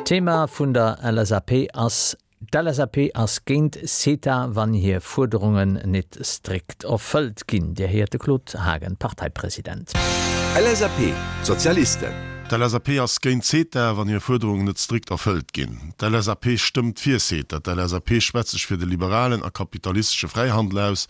D'Thema vun der LSAP ass D'LSAP ass géint CETA, wann hir Fuerderungen nit strikt erfëllt ginn. Dir héiert de Claude Haagen, Parteipresident. LSAP, D'Sozialisten. D'LSAP ass géint CETA, wann hir Fuerderungen net strikt erfëllt ginn. D'LSAP stëmmt fir CETA. D'LSAP schwätzt sech fir de liberalen a kapitalistesche Fräihandel aus.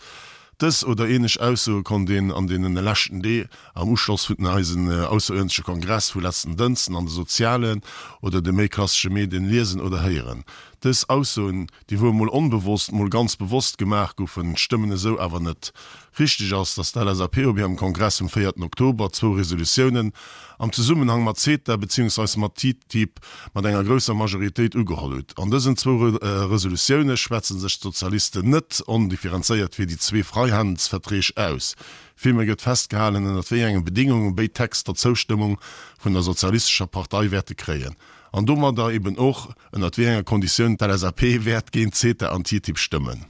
Dës oder ähnlech Aussoe konnt een an deenen leschten Dee am Uschloss vun eisen ausseruerdentleche Kongress vu letzten Dënsten an de sozialen oder de méi klassesche Medien liesen oder héieren. Dës Aussoen, déi wuel mol onbewosst, mol ganz bewosst gemaach goufen, stëmmen esou awer net. Richteg ass, datt d'LSAP op hirem Kongress vum véierten Oktober zwou Resolutiounen am Zesummenhang mat CETA beziehungsweis mat TTIP mat enger grousser Majoritéit ugeholl hutt. An dësen zwou Resolutioune schwätze sech d'Sozialisten net ondifferenzéiert fir déi zwee Freihandelsverträg aus. Villméi gëtt festgehalen, ënnert wéi enge Bedingunge béid Texter d'Zoustëmmung vun der Sozialistescher Partei wäerte kréien. An domadder eben och, ënnert wéi enger Konditioun d'LSAP wäert géint CETA an TTIP stëmmen.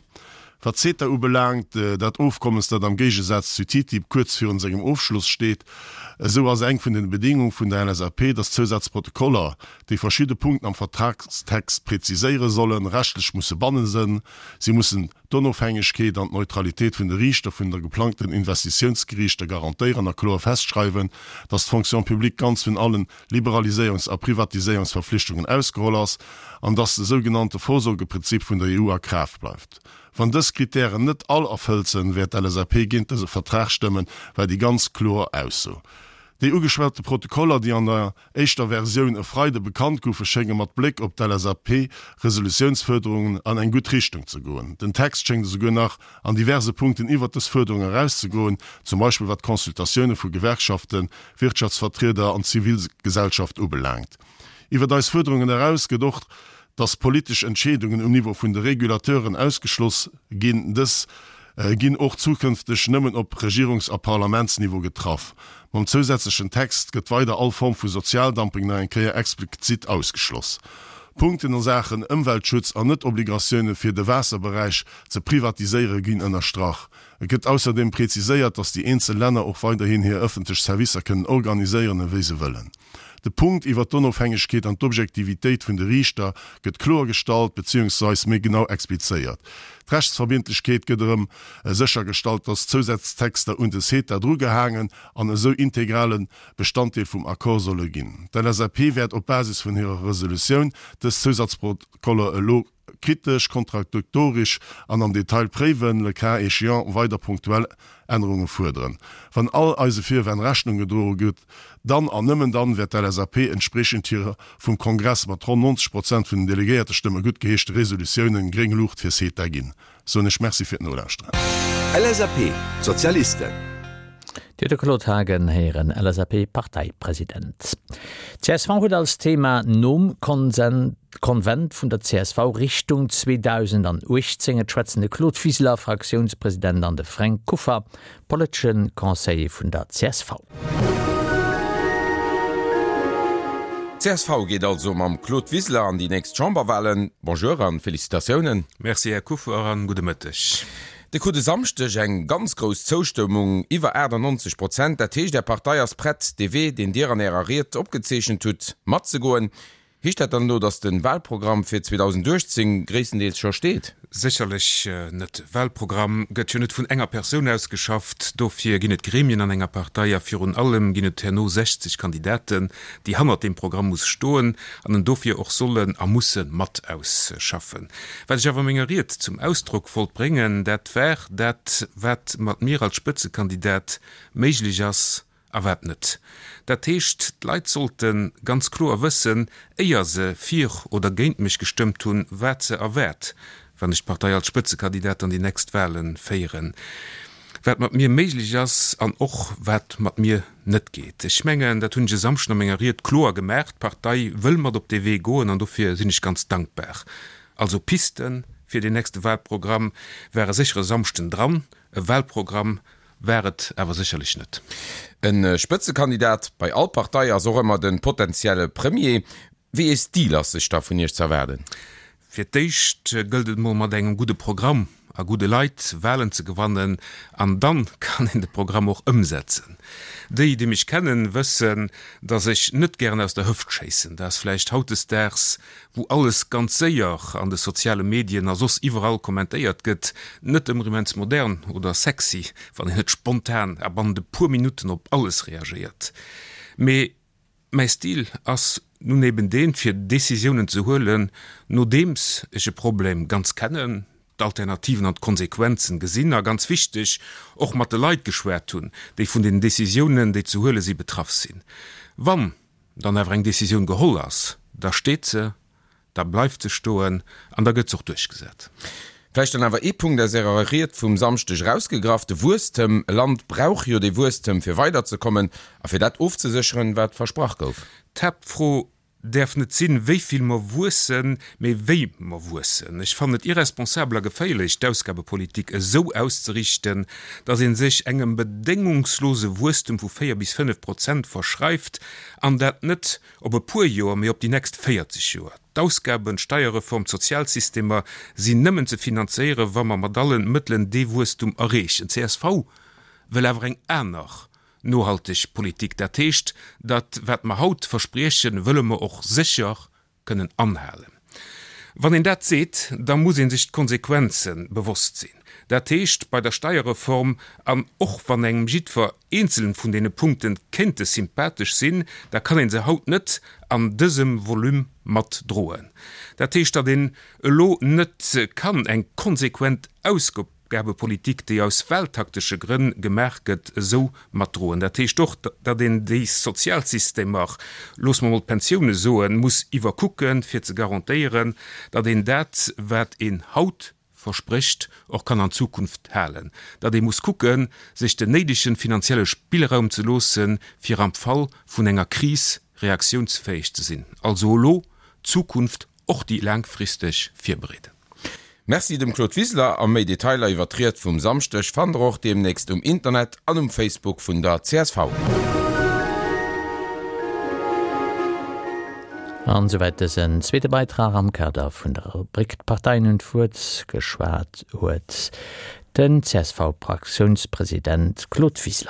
Wat CETA ubelaangt, dat Ofkommes, dat am Géigesaz zu TTIP kuerz virun sengem Ofschloss steet, esou ass eng vun den Bedingung vun der LSAP, dass d'Zousazprotokoller, déi verschidde Punkten am Vertragstext präziséiere sollen, rechtlech musse bannen sënn. Si mussen d'Onofhängegkeet an d'Neutralitéit vun de Riichter vun der geplangten Investitiounsgeriichter garantéieren a kloer festschreiwen, dass d'Fonction publique ganz vun allen Liberaliséierungs a Privatiséierungsverflichtungen ausgeholl ass an dass de sougenannte Vorsorgeprinzip vun der EU a Kraaft bleift. Wann dës Kritären net all erfëllt sënn, wäert d'LSAP géint dëse Vertrag stëmmen, war déi ganz kloer Ausso. Déi ugeschwate Protokoller, déi an der éischter Versioun e Freide bekannt goufen, schénge mat Bléck op d'LSAP-Resolutiounsfuerderungen an eng gutt Richtung ze goen. Den Text schéngt esouguer nach an diverse Punkten iwwert dës Fuerderung erauszegoen, zum Beispill wat d'Consultatioune vu Gewerkschaften, Wirtschaftsvertrieder an d'Zivilgesellschaft ubelaangt. Iwwert eis Fuerderungen eraus gëtt och, dass politesch Entscheedungen um Niveau vun de Regulateuren ausgeschloss ginn. Dës ginn och zukënfteg nëmmen op Regierungs a Parlamentsniveau getraff. Mam zousätzlechen Text gëtt weider all Form vu Sozialdumping nach eng Kéier explizit ausgeschloss. Punkten a Saachen Ëmweltschutz an net-Obligatioune fir de Waasserberäich ze privatiséiere ginn ënnerstrach. Et gëtt ausserdeem preziséiert, dass déi eenzel Länner och weiderhin hir ëffentlech Servicer kënnen organiséieren ewéi se wëllen. De Punkt iwwert d'Onofhängegkeet an d'Objektivitéit vun de Riichter gëtt kloer gestallt beziehungsweis méi genau explizéiert. D'Rechtsverbindlechkeet gëtt erëm séchergestallt, dass Zousaztexter un de CETA drugehaangen an esou integrale Bestanddeel vum Accord solle ginn. D'LSAP wäert op Basis vun hirer Resolutioun dës Zousatzprotokoller elo Kritesch, kontradiktorisch an am Detail préiwen, le cas échéant weider punktuell Ännerunge fuerderen. Wann all eise Virwänn Rechnung gedroe gëtt, dann an nëmmen dann wäert d'LSAP entspriechend hirer vum Kongress mat ronn 90 Prozent vun den Delegéiertestëmme guttgeheeschte Resolutiounen gréng Luucht fir CETA ginn. Soen ech Merci fir d'Nolauschteren. LSAP, D'Sozialisten. Dir hutt de Claude Haagen héieren, LSAP-Parteipresident. Csv huet als Thema nom Konsent, Konvent vun der csv Richtung 2018. Et schwätzen de Claude Wiseler, Fraktiounspresident, an de Fränk Kuffer, politesche Conseiller vun der csv. Csv geet also mam Claude Wiseler an déi nächst Chamberwahlen. Bonjour an Félicitatiounen. Merci Här Kuffer an gudde Mëtteg. Dir krut e Samschdeg eng ganz grouss Zoustëmmung, iwwer 98 Prozent. Dat heescht Är Partei ass prett dee Wee, deen Dir an Ärer Ried opgezeechent hutt, matzegoen. Heescht dat dann elo, datt de Wahlprogramm fir 2018 gréisstendeels scho steet? Sécherlech net. Wahlprogramm gëtt jo net vun enger Persoun ausgeschafft. Dofir ginn et Gremien an enger Partei a virun allem ginn et herno 60 Kandidaten, déi hannert deem Programm muss stoen an en dofir och sollen a musse mat ausschaffen. Wat ech awer a menger Ried zum Ausdrock wollt bréngen, dat war dat, wat mat mir als Spëtzekandidat méiglech ass A wat net. Dat heescht, d'Leit sollte ganz kloer wëssen, éier se fir oder géint mech gestëmmt hunn, wat se erwaart, wann ech d'Partei als Spëtzekandidat an déi nächst Wahle féieren. Wat mat mir méiglech ass an och wat mat mir net geet. Ech mengen, dat hunn ech e Samschden a menger Ried kloer gemaach. D'Partei wëll mat op dee Wee goen an dofir sinn ech ganz dankbar. Also Pisten fir deen nächste Wahlprogramm ware sécher e Samschden dran. E Wahlprogramm War et awer sécherlech net. E Spëtzekandidat bei all Partei ass och ëmmer de potentielle Premier. Wéi ee Stil ass sech da vun Iech z'erwaarden? Fir d'éischt gëllt et mol mat engem gudde Programm. a gudde Leit, Wahlen ze gewannen an dann kann een de Programm och ëmsetzen. Déi, déi mech kennen, wëssen, datt ech net gären aus der Hëft schéissen. Dat ass vläicht hautdesdaags, wou alles ganz séier an de soziale Medien a soss iwwerall kommentéiert gëtt, net ëmmer immens modern oder sexy, wann een net spontan a bannent e puer Minutten op alles reagéiert. Mee Mäi Stil ass nun eben deen, fir Décisiounen ze huelen, nodeems ech e Problem ganz kennen, d'Alternativen an d'Konsequenzen gesinn a, ganz wichteg, och mat de Leit geschwat hunn, déi vun den Décisiounen, déi ze huele si, betraff sinn. Wann dann awer eng Décisioun geholl ass, da steet se. Da bleift se stoen an da gëtt se och duerchgesat. Vläicht dann awer ee Punkt aus Ärer Ried vum Samschdeg erausgegraff, de Wuesstem. E Land brauch jo dee Wuesstem, fir weiderzekommen a fir dat ofzesécheren, wat versprach gouf. D'Haaptfro däerf net sinn, wéi vill mer wuessen, mee wéi mer wuessen. Ech fannen et irresponsabel a geféierlech, d'Ausgabepolitik esou auszeriichten, datt ee sech engem bedéngungslose Wuesstem vu 4 bis 5 Prozent verschreift, an dat net Op e puer Joer, mee op déi nächst 40 Joer. D'Ausgaben, d'Steierreform, d'Sozialsystemer sinn nëmmen ze finanzéieren, wa mer mat allen Mëttelen dee Wuesstum erreechen. Csv wëll awer eng aner nohalteg Politik. Dat heescht, dat wat mer haut verspriechen, wëlle mer och sécher kënnen anhalen. Wann een dat seet, da muss ee sech d'Konsequenze bewosst sinn. Dat heescht, bei der Steierreform, an och wann engem jiddwer eenzelen vun deene Punkte kéinte sympathesch sinn, da kann ee se haut net an dësem Volume mat droen. Dat heescht, datt een elo net kann eng konsequent Ausgabepolitik, déi aus wahltaktesche Grënn gemaach gëtt, esou mat droen. Dat heescht och, datt een déi Sozialsystemer, loosse mer emol d'Pensioune soen, muss iwwerkucken, fir ze garantéieren, datt een dat, wat een haut versprécht, och kann an Zukunft halen, datt ee muss kucken, sech den néidegen finanzielle Spillraum ze loossen, fir am Fall vun enger Kris reaktiounsfäeg ze sinn. Also elo d'Zukunft, och déi laangfristeg, virbereeden. Merci dem Claude Wiseler a méi Detailer iwwer d'Ried vum Samschdeg fannt der och deemnächst um Internet an um Facebook vun der csv. An esouwäit dësen zweete Beitrag am Kader vun der Rubrik D'Parteien hunn d'Wuert. Geschwat huet den CSV-Fraktiounspresident Claude Wiseler.